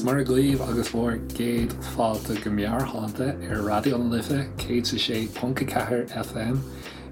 Agus Muire dhaoibh agus bhur gcéad fáilte go Meabhairshláinte ar Raidió na Life 106.4 FM.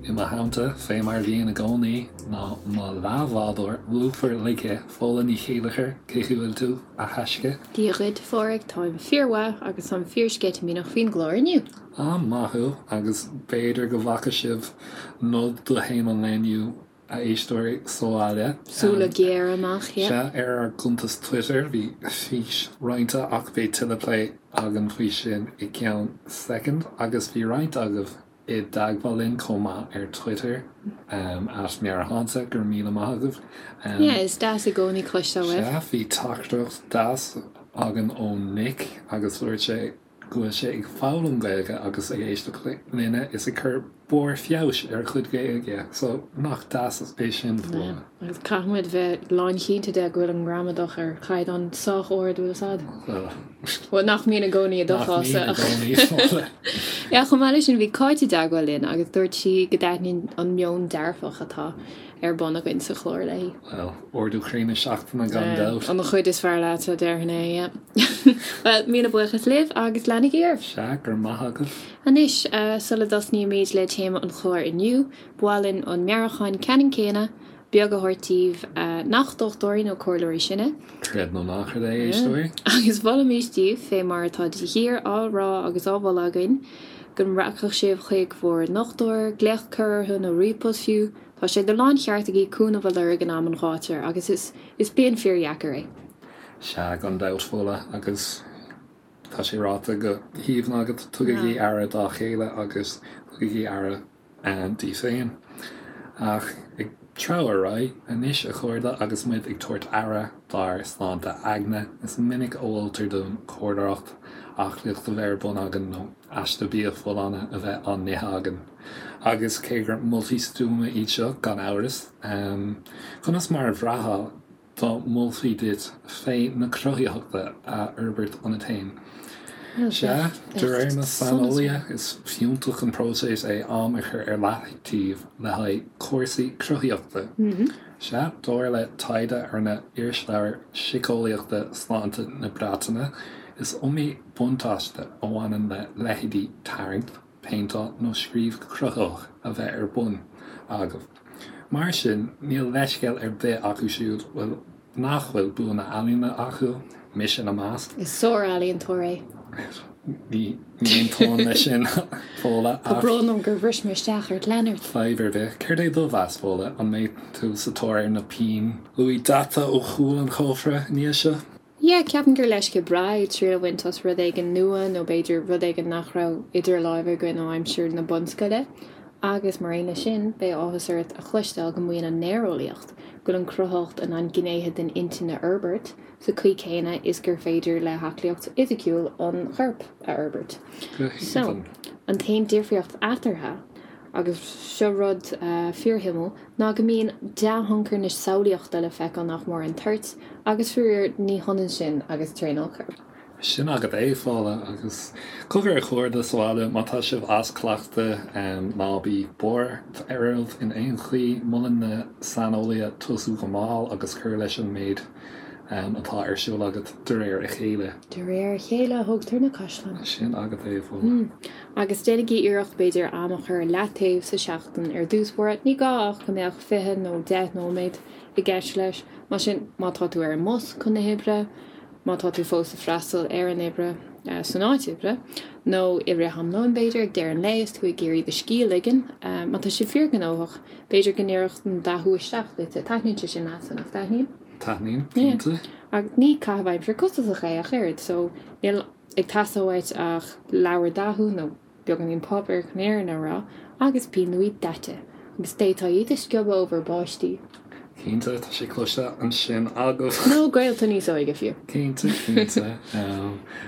I mo theannta, fé mar a bhíonn i gcónaí, ná mo leathbhádóir lúfar ligthe, Fódhla Ní Chéilleachair, cén chaoi a bhfuil tú, a thaisce? Dia dhuit, a Phádraig, táim fíormhaith agus táim fíorsceitimíneach faoin gclár inniu. Ah, maith thú, agus b'fhéidir go bhfaca sibh nod do théama an lae inniu, a éisteoirí sa bhaile. Súile géara amach, yeah. Sea, ar ár gcuntas Twitter bhí fís roinnte ach beidh tuilleadh plé againn faoi sin i gceann soicind agus bhí roinnt agaibh i dteagmháil linn chomh maith ar Twitter, at Meabhairshláinte, go raibh míle maith agaibh. Yeah, is deas i gcónaí cloisteáil uaibh. Sea, bhí teachtaireacht deas againn ó Nick agus dúirt sé go bhfuil sé ag foghlaim Gaeilge agus ag éisteacht linne is ag cur barr feabhais ar a chuid Gaeilge so nach deas é sin Fódhla. Agus caithfidh muid bheith lánchinnte de go bhfuil an ghramadach ar chaighdeán sách ard, bhfuil fhios a'd? Bhuel. Bhuel, nach mbíonn i gcónaí i do Nach mbíonn i gcónaí, Fódhla. Yeah, chomh maith leis sin bhí Cáit i dteagmháil linn agus dúirt sí go dtaitníonn an meon dearfach atá ar bun againn sa chlár léi. Bhuel, ardú croí na seachtaine gan dabht. An chuid is fearr leat, a déarfainn é, yeah. Bhuel, míle buíochas libh agus leanaigí oraibh! Sea, go raibh maith agaibh. Anois, sula dtosnaímid le téama an chláir inniu, ba mhaith linn an meabhrúchán ceannann céanna beag a thabhairt daoibh nach dochtúirí nó comhairleoirí sinne. Creid nó ná creid é, a éisteoirí. Agus mholfaimis daoibh, fé mar atá de shíor á rá agus á mholadh againn, go rachadh sibh chuig bhur ndochtúir, glaoch a chur orthu nó ríomhpost fiú, Tá sé de láncheart agaibh cúnamh a lorg in am an ghátair agus is is bliain fíordheacair é. Sea, gan dabht, Fódhla, agus tá sé ráite go haoibhinn agat, tugaigí aire dá chéile agus tugaigí aire daoibh féin. Ach ag treabhadh ar aghaidh anois, a chairde, agus muid ag tabhairt aire dár sláinte aigne, is minic a mholtar dúinn cerddóireacht, aclaíocht a bheith ar bun againn nó aiste bia folláine a bheith á n-ithe againn. Agus cé gur moltaí stuama iad seo, gan amhras, conas mar a bhraithfeá dá molfaí duit féith na cruthaitheachta a fhorbairt ionat féin? Sea, de réir na saineolaithe, is fiúntach an próiseas é am a chur ar leataobh le haghaidh cúrsaí cruthaitheachta. Sea, dar le taighde a rinne Irisleabhar Síceolaíochta Sláinte na Breataine, is iomaí buntáiste a bhaineann le leithéidí tarraingt, péinteáil nó scríobh cruthaitheach a bheith ar bun agaibh. Mar sin, níl leithscéal ar bith acu siúd bhfuil nach bhfuil bua na n-ealaíona acu, mise ina measc. Is sár-ealaíontóir é. Ní aontóinn leis sin, Fódhla, Tá brón orm gur bhris mé isteach ort, lean ort. Fadhb ar bith. Céard é do mheas, Fódhla? An mbeidh tú sa tóir ar na pinn luaidhe daite ó chúl an chófra i ndiaidh seo? Yeah, ceapaim gur leisce breá é triail a bhaint as rud éigin nua nó b'fhéidir rud éigin nach raibh idir láimhe againn ó aimsir na bunscoile. Agus mar aon leis sin, beidh áthas ort a chloisteáil go maíonn an néareolaíocht go bhfuil an chruthaitheacht in ann gnéithe den intinn a fhorbairt sa chaoi chéanna is gur féidir le haclaíocht fhisiciúil an choirp a fhorbairt. Go So, haoibhinn. an t-aon difríocht eatarthu, agus seo rud fíorshuimiúil, ná go mbíonn dea-thionchar na samhlaíochta le feiceáil nach mór ar an toirt, agus faraor, ní hionann sin agus traenáil choirp. Sin agat é, Fódhla, agus cogar a chairde sa bhaile, má tá sibh as cleachtadh, ná bí buartha oraibh in aon chaoi, molann na saineolaithe tosú go mall agus cur leis an méid atá ar siúl agat de réir a chéile. De réir a chéile a thógtar na caisleáin. Sin agat é, Fódhla. Agus déanaigí iarracht, b'fhéidir, am a chur ar leataobh sa seachtain ar dtús báire. Ní gá ach go mbeadh 20 nó 10 nóiméad i gceist leis. Mar sin, má tá tú ar an mbus chun na hoibre, má tá tú fós ag freastal ar an oibre san áit oibre, nó i rith am lóin, b'fhéidir, ag deireadh an lae is tú ag iarraidh do scíth a ligean, má tá sé fíorghnóthach, b'fhéidir go n-oirfeadh an dathú isteach duit. Taitníonn sé sin leatsa, nach dtaitníonn? Taitníonn, cinnte. Ach ní caitheamh aimsire costasach é ach oiread, so níl. ag teastáil uait ach leabhar dathú nó beagáinín páipéir chun an fhírinne a rá, agus pinn luaidhe daite, agus d'fhéadfá iad a sciobadh ó bhur bpáistí. Cinnte, tá sé cloiste ansin agaibh. Nó gaolta níos óige fiú. Cinnte, cinnte.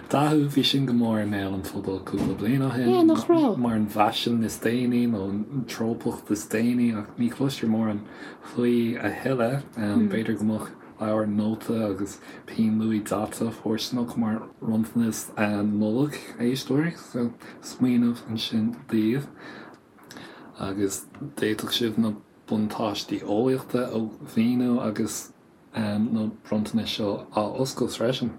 Dathú, bhí sin go mór i mbéal an phobail cúpla bliain ó shin. Yeah, nach raibh? Mar an bhfaisean is déanaí nó an treopacht is déanaí ach ní chloistear mórán faoi a thuilleadh. B'fhéidir go mbeadh leabhar nóta agus pinn luaidhe daite fóirsteanach mar bhronntanas Nollag, a éisteoirí, so smaoineamh ansin daoibh. Agus d'fhéadfadh sibh na buntáistí eolaíochta a mhíniú agus na bronntanais seo á oscailt freisin.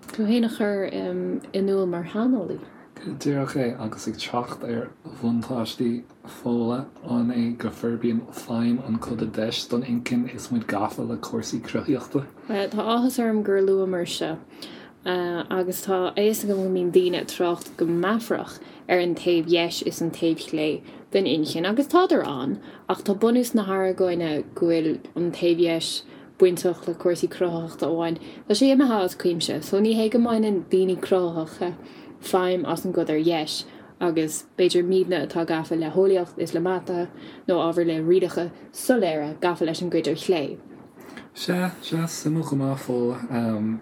Tú féin a chur in iúl mar shaineolaí. Go díreach é, agus ag trácht ar bhuntáistí Fódhla, an é go forbraíonn feidhm an coda deis don inchinn is muid gafa le cúrsaí cruthaitheachta? Tá áthas orm gur luamar seo, agus tá a fhios agam go mbíonn daoine ag trácht go meafarach ar an taobh dheis is an taobh chlé den inchinn, agus tádar ann, ach tá bunús na hargóine go bhfuil an taobh dheis bainteach le cúrsaí cruthaitheachta amháin, tá sé imithe as cuimse. So ní hé go mbaineann daoine cruthaitheacha feidhm as an gcuid ar dheis, agus b'fhéidir muidne atá gafa le heolaíocht is le mata nó ábhair le rialacha soiléire gafa leis an gcuid ar chlé. Sea, sea, suimiúil go maith, Fódhla.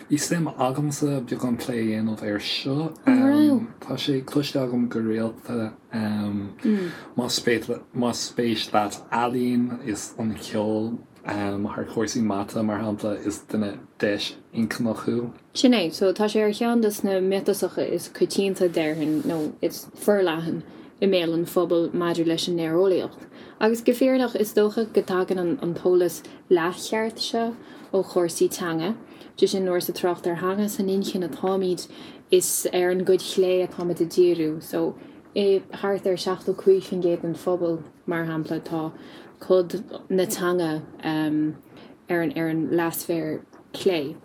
Bhí suim agamsa beagán plé a dhéanamh air seo. An raibh? Tá sé cloiste agam go rialta, más spéis leat ealaín is an ceol, Thar chúrsaí mata, mar shampla, is duine deis-inchinneach thú. Sin é. So, tá sé ar cheann de na miotasacha is coitianta, déarfainn, nó is forleathan i mbéal an phobail maidir leis an néareolaíocht. Agus go fírinneach, is dócha go dtagann an t-eolas leathcheart seo ó chúrsaí teanga. Sé sin, nuair is ag trácht ar theanga san inchinn atáimid, is ar an gcuid chlé atáimid ag díriú. So, i thart ar 75% den phobal, mar shampla, tá cod na teanga ar an ar an leathsféar clé.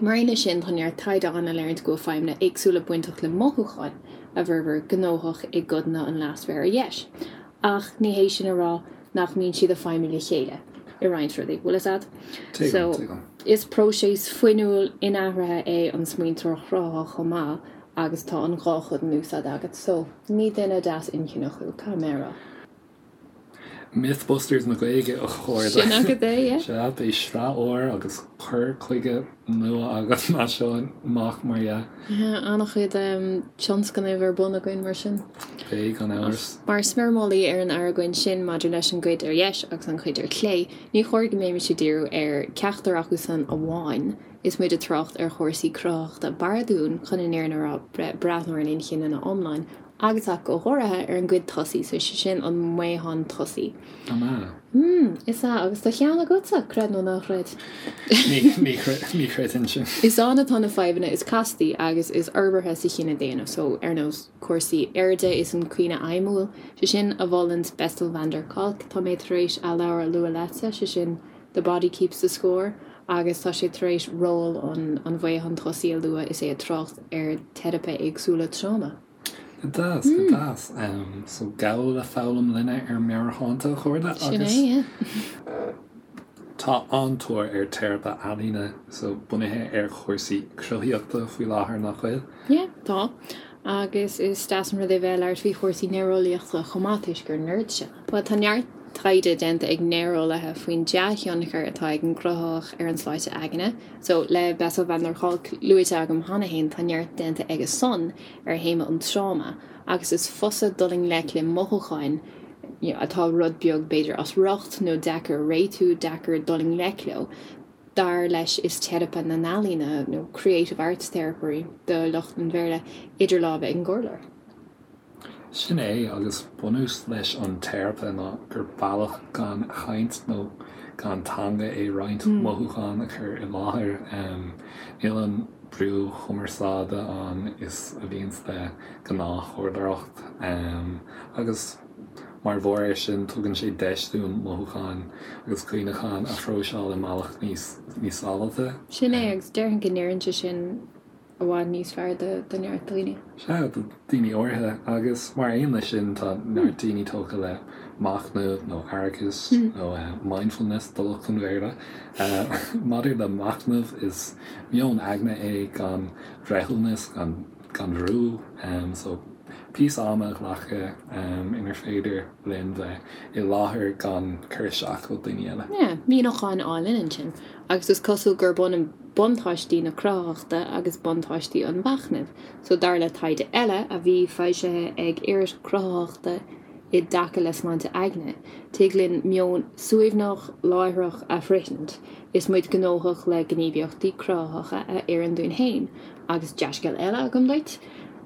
Mar aon leis sin, tá neart taighde ann a léiríonn go bhfuil feidhmeanna éagsúla bainteach le mothúcháin a bhformhór gnóthach i gcodanna an leathsféir ar dheis. Ach ní hé sin a rá nach mbíonn siad ag feidhmiú le chéile i roinnt rudaí. Bhfuil fhios a'd? Tuigim, So, tuigim. is próiseas fuinniúil inathraithe é an smaointeoireacht chruthaitheach chomh maith, agus tá an dhá chuid in úsáid agat so ní duine deas-inchinneach thú, caithfidh mé a rá. Mythbusters na Gaeilge a chairde. Sin agat é, yeah. Sea, beidh sraith úr agus cur chuige nua againn as seo amach, mar dhea. Yeah, an-chuid tionscnaimh ar bun againn mar sin. Beidh, gan amhras. Mar smiormálaí ar an argóint sin maidir leis an gcuid ar dheis agus an chuid ar chlé, ní chóir go mbeimis ag díriú ar ceachtar acu san amháin, Is muid ag trácht ar chúrsaí cruthaitheachta b'fhearr dúinn, chun an fhírinne a rá, breathnú ar an inchinn ina iomlán, agus ach go háirithe ar an gcuid tosaigh, so sé sin an maothán tosaigh. An ea? Mm, is ea, agus tá ceann agatsa, creid nó ná creid. Ní chreidfinn sin. Is ann atá na fadhbanna is castaí agus is forbartha sa chine daonna, so ar nós cúrsaí airde is an cuimhne fheidhmiúil, sé sin a mholann Bessel van der Kolk, tá mé tar éis a leabhar a lua leatsa, sé sin The Body Keeps the Score agus tá sé tar éis ról an mhaotháin tosaigh a lua is é ag trácht ar teiripe éagsúla tráma. Go deas, go deas. So gabh le foghlaim linne ar Meabhairshláinte, a chairde, Sin agus é, yeah. tá an-tóir ar teiripe ealaíne, so bunaithe ar chúrsaí cruthaitheachta faoi láthair, nach bhfuil? Yeah, tá. Agus is deas an rud é bheith ag labhairt faoi chúrsaí néareolaíochta chomh maith toisc gur nerd sinn. Bhuel, tá neart taighde déanta ag néareolaithe faoin dea-thionchar atá ag an gcruthaitheacht ar an tsláinte aigne. So, le Bessel van der Kolk luaite agam cheana féin, tá neart déanta aige san ar théama an tráma agus is fusa dul i ngleic le mothúcháin atá rud beag b'fhéidir as riocht nó deacair a réitiú, deacair dul i ngleic leo. Dar leis is teiripe na n-ealaíona, nó creative arts therapy do lucht an Bhéarla, idir lámha ag an gcomhairleoir. Sin é, agus bunús leis an teiripe ná gur bealach gan chaint nó gan teanga é roinnt mothúchán a chur i láthair. Níl an brú chumarsáide ann is a bhíonns le gnáthchomhairleoireacht agus mar bharr air sin tugann sé deis dúinn mothúcháin agus cuimhneacháin a phróiseáil i mbealach níos sábháilte. Sin é, agus déarfainn go n-oireann sé sin i bhfad níos fearr do neart daoine. Sea, do daoine áirithe, agus mar aon leis sin tá neart daoine tógtha le machnamh nó aireachas nó mindfulness do lucht an Bhéarla. Maidir le machnamh, is meon aigne é gan bhreithiúnas, gan. gan bhrú, so píosa ama a ghlacadh inar féidir linn bheith i láthair gan cur isteach ó daoine eile. Yeah, míniúchán álainn ansin. Agus is cosúil gurb ionann buntáistí na cruthaitheachta agus buntáistí an mhachnaimh. So dar le taighde eile a bhí foilsithe ag Iris Cruthaitheachta i dtaca le sláinte aigne, tig linn meon suaimhneach, láithreach a shroichint is muid gnóthach le gníomhaíochtaí cruthaitheacha a oireann dúinn féin. Agus dea-scéal eile agam duit,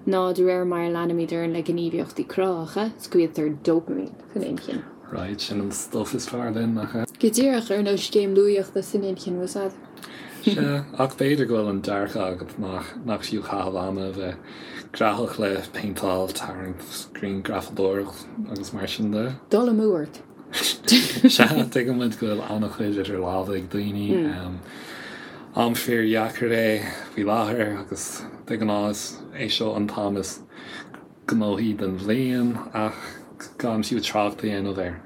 ná de réir mar a leanaimid orainn le gníomhaíochtaí cruthaitheacha, scaoiltear dopamine san inchinn. Right, sin an stuff is fearr linn, nach ea? Go díreach, ar nós scéim luaíochta san inchinn, bhfuil 's a'd. Sea, ach b'fhéidir go bhfuil an dearcadh agat nach nach fiú caitheamh ama a bheith graitheach le péinteáil, tarraingt, grianghrafadóireacht agus mar sin de. Dul amú ort. Sea, tuigeann muid go bhfuil an-chuid idir lámha ag daoine. Am fíordheacair é faoi láthair agus de ghnáth is é seo an t-am is gnóthaí den bhliain ach gan fiú trácht a dhéanamh ar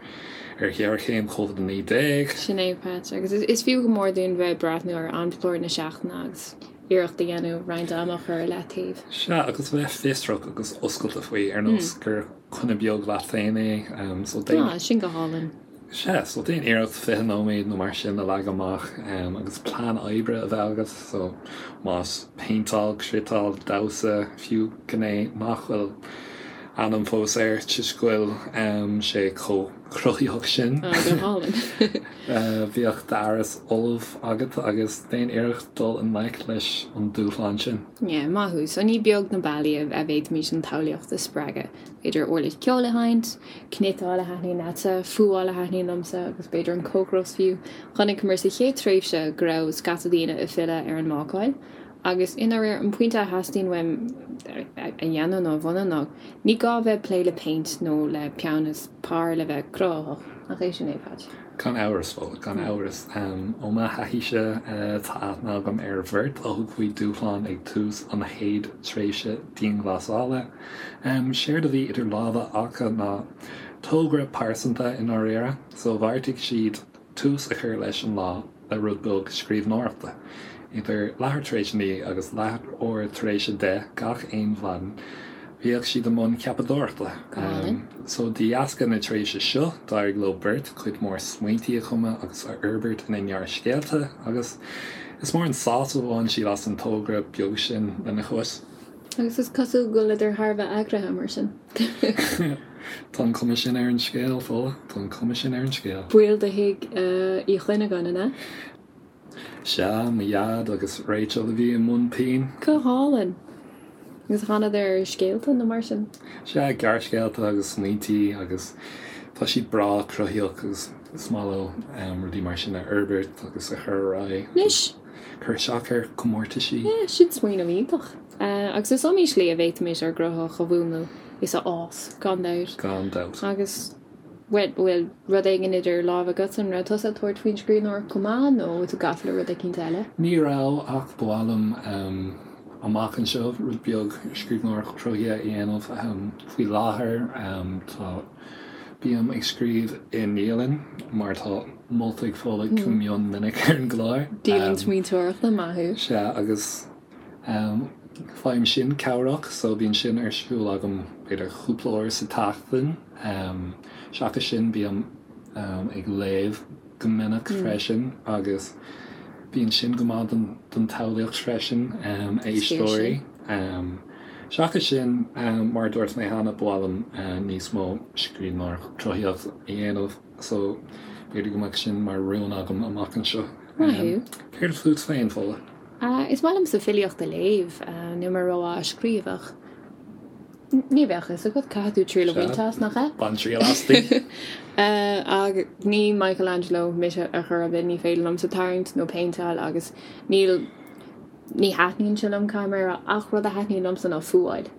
ar ghéarchéim Covid-19. Sin é, Pat. Agus is fiú go mór dúinn bheith ag breathnú ar amchlár na seachtaine agus iarracht a dhéanamh roinnt ama a chur ar leataobh. Sea, agus bheith fiosrach agus oscailte faoi, ar nós gur coinne beag leat féin é. So déan. Ah, sin go hálainn. Sea, so déan iarracht 20 nóiméad nó mar sin a leagan amach agus plean oibre a bheith agat, so más péinteáil, cniotáil, damhsa, fiú gné nach bhfuil ainm fós air toisc go bhfuil sé chomh cruthaitheach sin. Ah, go hálainn. Bíodh d'fhearas ullamh agat agus déan iarracht dul i ngleic leis an dúshlán sin. Yeah, maith thú. So ní beag na bealaí a bhféadfaimis an tsamhlaíocht a spreagadh. B'fhéidir uirlis ceoil a sheinnt, cniotáil a thaitníonn leatsa, fuáil a thaitníonn liomsa agus b'fhéidir an cócaireacht fiú. Chonaiceamar sa chéad tréimhse go raibh scata daoine ag filleadh ar an mbácáil agus i ndáiríre an pointe a theastaíonn uaim a dhéanamh nó a bhunú ná ní gá bheith ag plé le péint nó le peann is pár le bheith cruthaitheach. Nach é sin é, Patch? Gan amhras, bhuel, gan amhras. Ó mo thaithíse, tá aithne agam ar bheirt a thug faoi dúshlán ag tús an chéad tréimhse dianghlasála. Séard a bhí idir lámha acu ná togra pearsanta i ndáiríre, so bheartaigh siad tús a chur leis an lá le rud beag scríbhneoireachta. Idir leathuair tar éis a 9 agus leathuair tar éis a 10 gach aon mhaidin, bhíodh siad i mbun ceapadóireachta. So de dheasca na tréimhse seo, d'éirigh leo beirt cuid mhór smaointí a chumadh agus a fhorbairt ina ngearrscéalta agus is mór an sásamh a bhain siad as an togra beag sin lena chois. Agus is cosúil go bhfuileadar thar a bheith eagraithe, mar sin. Tá an chuma sin ar an scéal, Fódhla. Tá an chuma sin ar an scéal. Baill de thigh Uí Chuinneagáin, an ea? Sea, mo dhaid agus Rachel a bhí i mbun pinn. Go hálainn! Agus thánadar ar scéalta nó mar sin? Sea, gearrscéalta agus smaointí agus tá siad breá cruthaíoch agus is maith leo rudaí mar sin a fhorbairt agus a chur ar aghaidh. Anois! Cur isteach ar chomórtaisí. Yeah, sin smaoineamh iontach. Agus is iomaí slí a bhféadfaimis ár gcruthaitheacht a mhúnlú is a fhás, gan dabht. Gan dabht. Agus, bhuel, bhfuil rud éigin idir lámha agat? An raibh tusa ag tabhairt faoin scríbhneoireacht chomh maith nó tú gafa le rud eicínt eile? Ní raibh, ach ba mhaith liom amach anseo rud beag scríbhneoireacht chruthaithe a dhéanamh. Faoi láthair, tá. Bím ag scríobh i ndialann, mar atá molta ag Fódhla go mion minic ar an gclár. Dialann smaointeoireachta, maith thú. Sea, agus faighim sin cabhrach, so bíonn sin ar siúl agam b'fhéidir cúpla uair sa tseachtain. Seachas sin, bím ag léamh go minic freisin agus bíonn sin go maith don tsamhlaíocht freisin, éisteoirí. Seachas sin, mar a dúirt mé cheana, ba mhaith liom níos mó scríbhneoireacht cruthaitheach a dhéanamh so b'fhéidir go mbeadh sin mar rún agam amach anseo. Maith thú. Céard fút féin, Fódhla? Is maith liomsa filíocht a léamh, níl mé rómhaith á scríobh ach ní bheadh fhios agat, caithfidh tú triail a bhaint as, nach ea? Bain triail asti. Ach ní Michelangelo mise ar chor ar bith, ní féidir liomsa tarraingt nó péinteáil agus níl Ní thaitníonn sé liom, caithfidh mé a rá, ach rud a thaitníonn liomsa ná fuáil.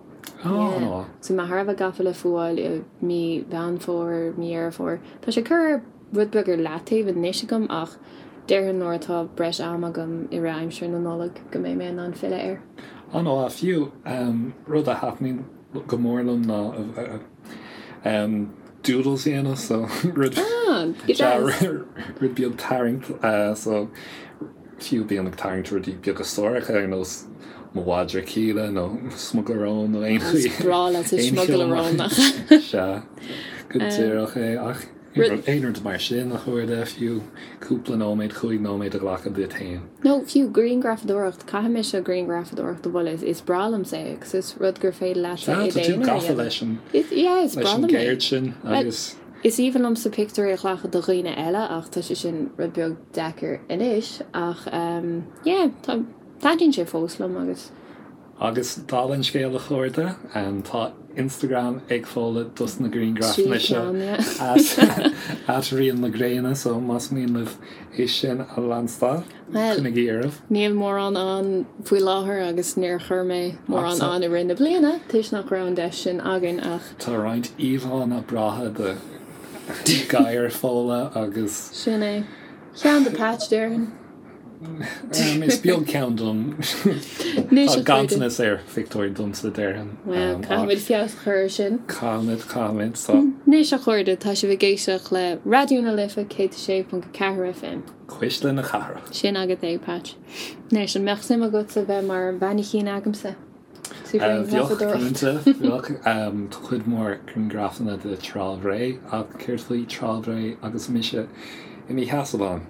Yeah. So mé thar a bheith gafa le fuáil i mí Mheán Fómhair, mí Dheireadh Fómhair. Tá sé curtha rud beag ar leataobh anois agam ach déarfainn nuair atá breis ama agam i rith aimsir na Nollag go mbeidh mé in ann filleadh air. An-mhaith. Fiú, rud a thaitníonn go mór liom ná doodles a dhéanamh so rud Ah, go deas. rud beag tarraingt so Fiú bím ag tarraingt rudaí beaga suaracha ar nós mo mhadra Kíla nó smugairle róin nó aon chaoi. Is breá leat an smugairle róin nach ea? Sea, go díreach é. Ach aon rud mar sin, a chairde, fiú cúpla nóiméad, chúig nóiméad a ghlacadh duit féin. Nó fiú grianghrafadóireacht, caithfidh mise grianghrafadóireacht a mholadh, is breá liomsa é agus is rud gur féidir leatsa i d'aonar a dhéanamh. Sea, tá tú gafa leis an gceird sin agus. Is aoibhinn liomsa pictiúirí a ghlacadh do dhaoine eile ach tá sé sin rud beag deacair anois ach yeah tá, taitníonn sé fós liom agus. Agus dála an scéil a chairde, tá Instagram ag Fódhla dos na grianghrafanna seo at Rian na Gréine so más mian libh é sin a leanstáil, coinnigí oraibh. Níl mórán ann faoi láthair agus níor chuir mé mórán ann i rith na bliana toisc nach raibh an deis sin againn ach. Tá roinnt íomhánna breátha de ghadhair Fódhla agus. Sin é. Ceann do Patch, déarfainn. Is beag ceann dom. Tá ganntanas ar phictiúir domsa, déarfainn. Bhuel, caithfimid feabhas a chur air sin. Caithfimid, caithfimid. So. Anois a chairde, tá sibh ag éisteacht le Raidió na Life 106.4 FM. Cuisle na Cathrach. Sin agat é, Patch. Anois, an mbeadh suim agatsa bheith mar mhainicín agamsa? Sa ghrianghrafadóireacht. Bheadh, cinnte, bheadh. Tá cuid mhór grianghrafanna de Trá Bhré, ach céard faoi Trá Bhré agus mise i mo sheasamh ann?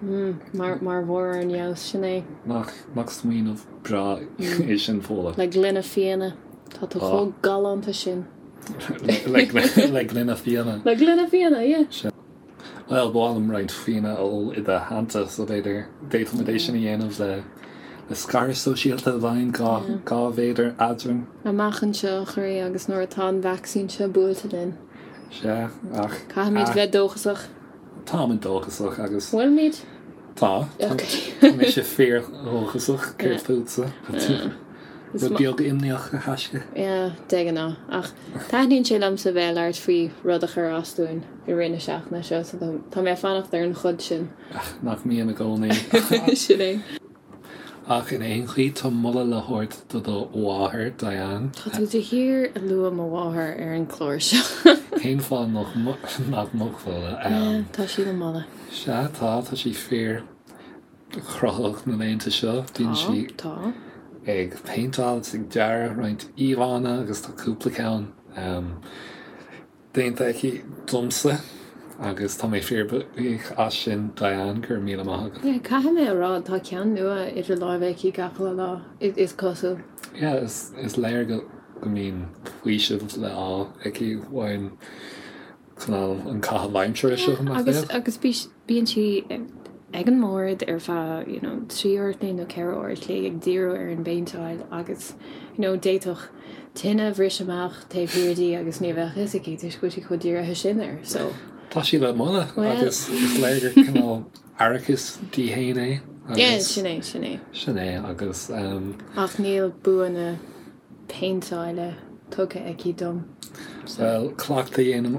Mar bharr ar an fheabhas, sin é. Nach smaoineamh breá é sin, Fódhla? Le gloine fíona. Tá tú chomh galánta sin. Le gloine fíona. Le gloine fíona, yeah. Bhuel, ba mhaith liom roinnt fíona a ól i do theannta, so b'fhéidir d'fhéadfadh muid é sin a dhéanamh le le scaradh sóisialta i bhfeidhm, 2 mhéadar eadrainn. Amach anseo, a chroí, agus nuair atá an vacsaín seo buailte linn. Sea, ach. Caithfimid bheith dóchasach. Táimid dóchasach agus. Bhfuilimid? Tá. Tá mise fíor-dhóchasach, céard fútsa? Rud beag imníoch, a thaisce. Yeah, de ghnáth. Ach taitníonn sé liomsa bheith ag labhairt faoi rud a chuir as dúinn i rith na seachtaine seo, so tá mé ag fanacht ar an chuid sin. Ach nach mbíonn i gcónaí. Sin é. Ach in aon chaoi, tá moladh le thabhairt do do mháthair, Diane. Tá tú de shíor ag lua mo mháthair ar an gclár seo. Cén fáth nach mbeadh, Fódhla? Tá sí le moladh. Sea, tá, tá sí fíor. chruthaitheach na laethanta seo. Bíonn sí ag péinteáil agus ag dearadh roinnt íomhánna agus tá cúpla ceann déanta aici domsa agus tá mé fíorbhuíoch as sin Diane, go raibh míle maith agat. Yeah, caithfidh mé a rá, tá ceann nua idir láimhe aici gach uile lá, is cosúil. Yeah, is léir go mbíonn faoiseamh le fháil aici ón cineál an caitheamh aimsire seo, nach ea? Agus bíonn sí ag an mbord ar feadh you know 3 uair a chloig nó 4 uair a chloig ag díriú ar an bpéinteáil agus you know d'fhéadfadh tine a bhriseadh amach taobh thiar di agus ní bheadh fhios aici toisc go bhfuil sí chomh dírithe sin air so. Tá sí le moladh agus is léir gur cineál aireachas di fhéin é agus. Yeah, sin é, sin é. Sin é agus. Ach níl bua na péinteála tugtha aici dom. Bhuel, cleachtadh a dhéanann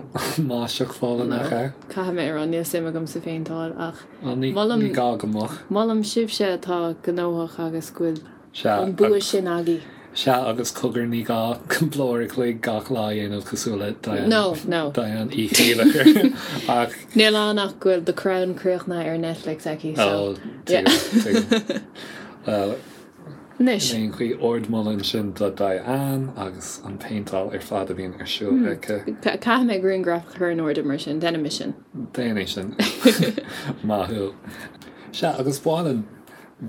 máistreacht Fódhla, nach ea? Caithfidh mé a rá, níl suim agam sa phéinteáil ach molaim, ní gá go mbeadh. Molaim sibhse atá gnóthach agus go bhfuil an bua sin agaibh. Sea, agus cogar, ní gá cúpla uair a chloig gach lá a dhéanamh cosúil le Diane, No, no. Diane Uí Chéilleachair ach. Níl ann ach go bhfuil The Crown críochnaithe ar Netflix aici, so. Ó, tuigim, tuigim. Bhuel. Anois. In aon chaoi, ardmholadh ansin do Diane agus an phéinteáil ar fad a bhíonn ar siúl aici. Caithfidh mé grianghraf a chur in airde mar sin, déanfaidh mé sin. Déan é sin. Maith thú. Sea, agus ba mhaith linn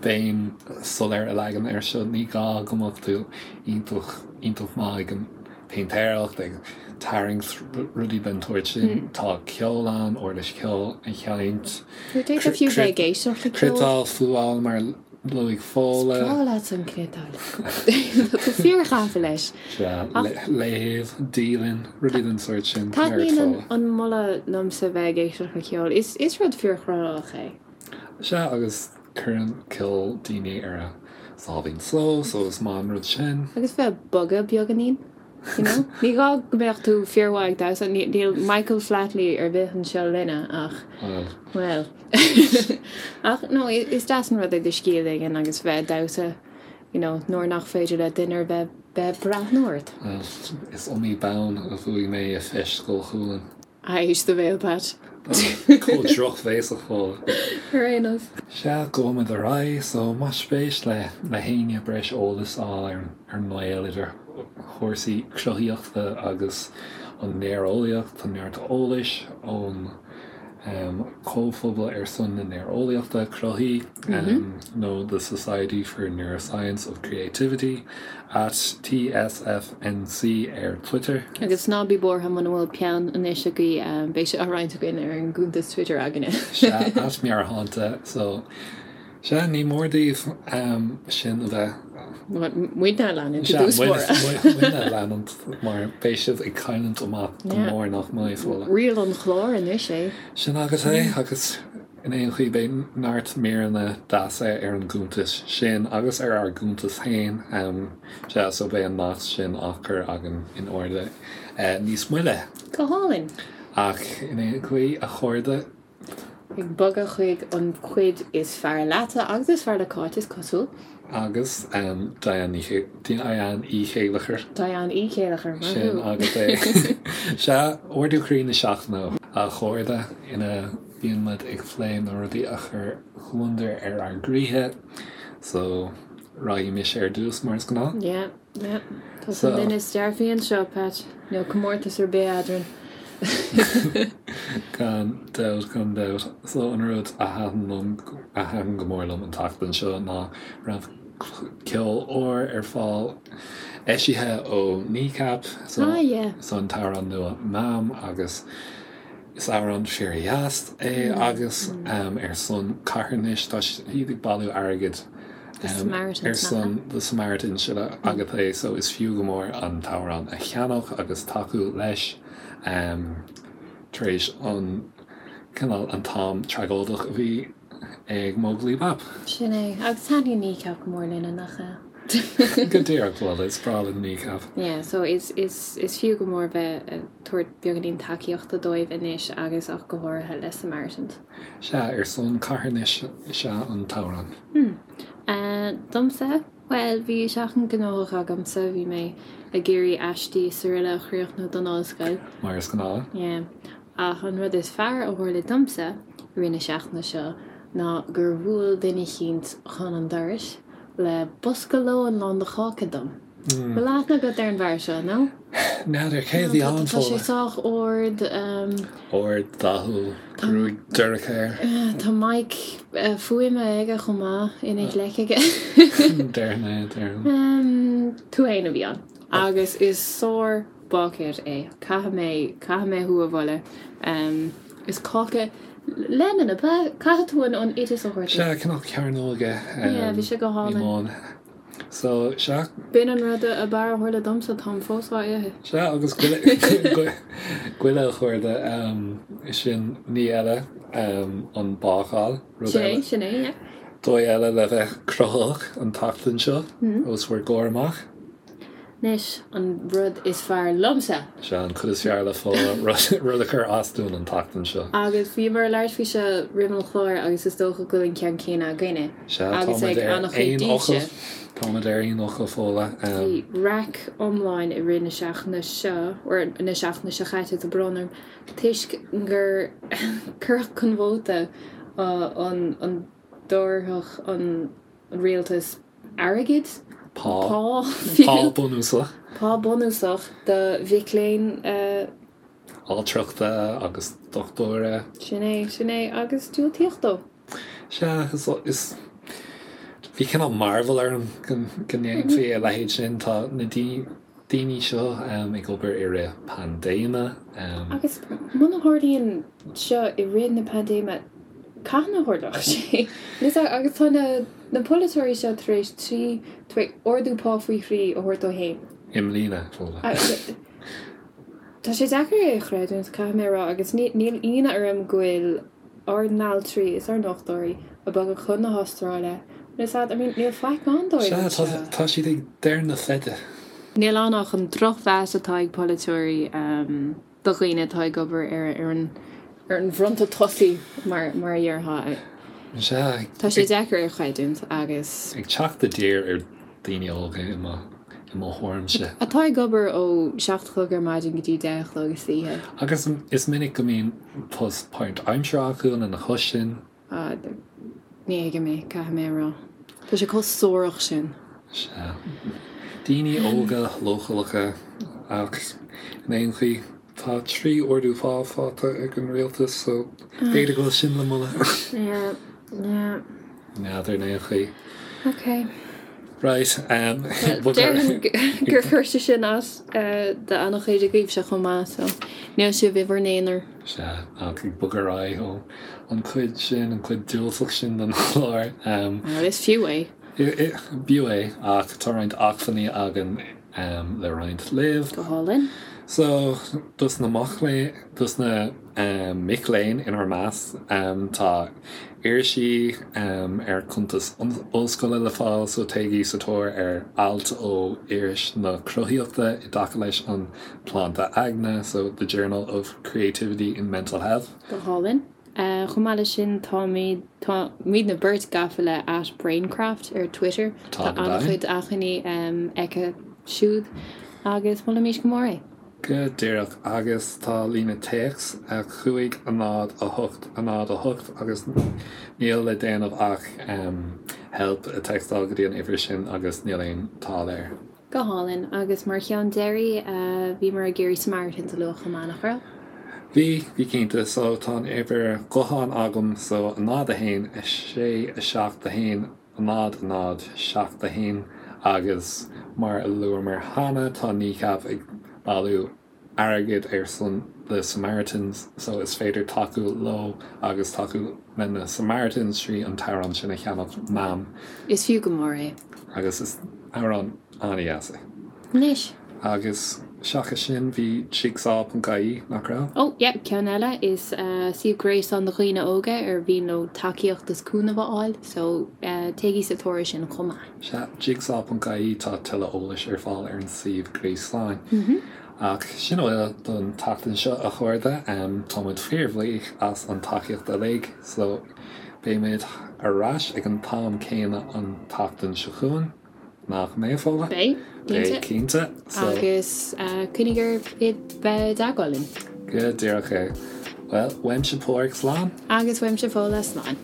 béim soiléir a leagan air seo, ní gá go mbeadh tú iontach, iontach maith ag an péintéireacht, ag tarraingt, rudaí den tsórt sin. Tá ceol ann, uirlis cheoil a sheinnt. D'fhéadfá fiú bheith ag éisteacht le ceol. Cniotáil, fuáil mar luaigh Fódhla. Is breá leat an chniotáil. Tá tú fíorghafa leis. Sea, léamh, dialann, rudaí den sórt sin. Taitníonn an moladh liomsa bheith ag éisteacht le ceol. Is rud fíorchruthaitheach é. Sea, agus cuireann ceol daoine ar a sáimhín só, so is maith an rud sin. Agus bheith ag bogadh beagáinín. You know? Ní gá go mbeadh tú fíormhaith ag damhsa, níl Michael Flatley ar bith anseo linne ach, bhuel. Ach no, is deas an rud é do scíth a ligean agus bheith ag damhsa, you know, nuair nach féidir le duine ar bith bheith ag breathnú ort. Bhuel, is iomaí bonn a bhuaigh mé i Feis Scoil Chualann. Éist do bhéal, Pat. Chomh drochbhéasach Fódhla. Ar aon nós. Sea, gabhfaimid ar aghaidh, so más spéis le le héinne breis eolais a fháil ar ar an ngaol idir chúrsaí cruthaíochta agus an néareolaíocht, tá neart eolais ón Comhphobal ar son na Néareolaíochta Cruthaithí nó The Society for Neuroscience of Creativity at TSFNC ar Twitter. Agus ná bí buartha muna bhfuil peann anois agaibh, beidh sé á roinnt againn ar an gcuntas Twitter againne. Sea, at Mearthánta. So, Sea, ní mór daoibh sin a bheith. Muidne a leanúint i dtús báire. Muidne a leanúint mar beidh sibh ag cailliúint amach go mór nach mbeidh, Fódhla. Riail an chláir anois é. Sin agat é agus in aon chaoi beidh neart míreanna deasa ar an gcuntas sin agus ar ár gcuntas féin. Sea, so beidh an nasc sin á chur againn in airde níos moille. Go hálainn. Ach in aon chaoi, a chairde, Ag bogadh chuig an chuid is fearr leatsa agus is fearr le Cáit, is cosúil. Agus Diane Ní Diane Uí Chéileachair. Diane Uí Chéileachair, maith thú. Sin agat é. Sea, ardú croí na seachtaine, a chairde, ina mbíonn muid ag plé na rudaí a chuir gliondar ar ár gcroíthe. So, raghaidh mise ar dtús, mar is gnáth. Yeah. Yeah. Tusa an duine is dearfaí anseo, Pat. Níl comórtas ar bith eadrainn. Gan dabht, gan dabht. So an rud a thaitin liom, a thaitin go mór liom an tseachtain seo ná raibh ceol úr ar fáil, eisithe ó Kneecap, so Ah yeah. so an t-amhrán nua Mam agus is amhrán fíordheas é agus ar son carthanais, tá siad ag bailiú airgid The Samaritans ar son The Samaritans sin agat é so is fiú go mór an t-amhrán a cheannach agus tacú leis tar éis an cineál an t-am tragóideach a bhí ag Móglaí Bap. Sin é. Agus taitníonn Kneecap go mór linne, nach ea? Go díreach, bhuel is breá linn Kneecap. Yeah, so is is is fiú go mór bheith ag tabhairt beagáinín tacaíochta dóibh anois agus ach go háirithe le Samaritans. Sea, ar son carthanais is ea an t-amhrán. Hmm. Domsa? Bhuel, bhí seachtain gnóthach agamsa, bhí mé ag iarraidh aistí is araile a chríochnú don ollscoil. Mar is gnáth. Yeah. Ach an rud is fearr a tharla domsa i rith na seachtaine seo ná gur bhuail duine eicínt chun an dorais le bosca lóin lán de cháca dom. Bhfuil aithne agat ar an bhfear seo, nó? N'fheadar, cé a bhí ann, Tá sé sách ard. Ard, dathúil, gruaig dorcha air. Tá mic fuaime aige chomh maith ina ghleic aige. Déarfainn é, déarfainn. Tú fhéin a bhí ann. Agus is sár-bháicéir é. Caithfidh mé, caithfidh mé thú a mholadh. Is cáca lemon ab ea? Caithfidh tú an oideas a thabhairt. Sea, cineál cearnóige. Yeah, bhí sé go hálainn. So, sea. B'in an rud ab fhearr a tharla domsa, táim fós á ithe. Sea, agus goile, goile a chairde, sin ní eile, an bácáil, rud Sin é, sin é, yeah. Dóigh eile le bheith cruthaitheach an tseachtain seo, os bhur gcomhair amach. Anois, an rud is fearr liomsa! Sea, an chuid is fearr le Fódhla, rud a chuir as dúinn an tseachtain seo. Agus bhíomar ag labhairt faoi seo roimh an chlár agus is dócha go bhfuil an ceann céanna againne. Sea, Agus táimid ag ar an-chuid aon fhocal. daoibhse. Táimid ar aon fhocal, Fódhla. Bhí raic iomlán i rith na seachtaine seo, or na seachtaine seo chaite, tá brón orm, toisc gur cuireadh chun vóta an an dtabharfadh an rialtas airgead, Pá. pá, Pá bunúsach. Pá bunúsach do mhic léinn. Altrachta agus dochtúra. Sin é, sin é, agus diúltaíodh dó. Sea, is, is, bhí cineál mearbhall orm go, go ndéanfaí a leithéid sin. Tá na daoine seo ag obair i rith paindéime. Agus muna tharlaíonn seo i rith na paindéime, cathain a tharlódh sé? Agus tá na, na polaiteoirí seo tar éis trí, tar éis ardú pá faoi thrí a thabhairt dóibh féin. I mbliana, Fódhla. Tá sé deacair é a chreidiúint, caithfidh mé a rá, agus níl ionadh orm go bhfuil ár n-altraí is ár ndochtúirí ag bogadh chun na hAstráile, is ea, I mean, níl faic ann dóibh Sea, anseo. tá, tá siad ag deireadh na feide. Níl ann ach an drochmheas atá ag polaiteoirí do dhaoine atá ag obair ar ar an ar an bhfronta tosaigh, mar mar a déarfá. Sea, Tá sé deacair é a chreidiúint agus. ag teacht i dtír ar daoine óga i mo i mo thuairimse. Atá ag obair ó 7 a chlog ar maidin go dtí 10 a chlog istoíche. Agus is minic go mbíonn post páirtaimseartha acu lena chois sin. Ah, ní thuigim é, caithfidh mé a rá. Tá sé chomh suarach sin. Sea. Daoine óga leochaileacha ach in aon chaoi tá 3 ardú pá faighte ag an rialtas so b'fhéidir go bhfuil sin le moladh. Yeah, yeah. N'fheadar in aon chaoi. Ok. Right, Déarfainn gur chuir sé sin as do an-chuid agaibhse chomh maith, so níl sibh i bhur n-aonar. Sea, ach ag bogadh ar aghaidh ó an chuid sin, an chuid diúltach sin den chlár. Well, is fiú é. B'fhiú é, ach tá roinnt acmhainní againn le roinnt libh. Go hálainn. So, dos na mac léinn, dos na mic léinn inár measc, tá irisí ar chuntas ollscoile le fáil, so téigí sa tóir ar ailt ó Iris na Cruthaíochta i dtaca leis an tsláinte aigne, so The Journal of Creativity in Mental Health. Go hálainn. Chomh maith leis sin, táimid, táimidne beirt gafa le at Braincraft ar Twitter. Tá an-chuid acmhainní aici siúd agus molaimís go mór é. Go díreach, agus tá líne téacs 5 0 8 0 8 agus níl le déanamh ach help a téacsáil go dtí an uimhir sin agus níl aon táille air. Go hálainn. Agus mar cheann deiridh, bhíomar ag iarraidh Samaritans a lua chomh maith, nach raibh? Bhí, bhí cinnte. So tá an uimhir ghutháin agam, so 0 1 6 7 1 0 0 7 1 agus mar a luamar cheana tá Kneecap ag bailiú airgead ar son the Samaritans so is féidir tacú leo agus tacú le na Samaritans trí an t-amhrán sin a cheannach Mam. Is fiú go mór é. Agus is amhrán an-dheas é. Anois. Agus seachas sin bhí jigsaw.ie, nach raibh? Oh yeah, ceann eile, is suíomh gréasáin do dhaoine óga ar mhian leo tacaíocht is cúnamh a fháil, so téigí sa tóir air sin chomh maith. Sea, jigsaw.ie, tá tuilleadh eolais ar fáil ar an suíomh gréasáin. Ach sin a bhfuil don tseachtain seo, a chairde. Tá muid fíorbhuíoch as an tacaíocht uilig, so beimid ar ais ag an t-am céanna an tseachtain seo chugainn, nach mbeidh, Fódhla? Beidh, cinnte. Beidh, cinnte. So. Agus coinnigh ar bheith i dteagmháil linn. Go díreach é. Bhuel, uaimse Páraic, slán. Agus uaimse Fódhla, slán.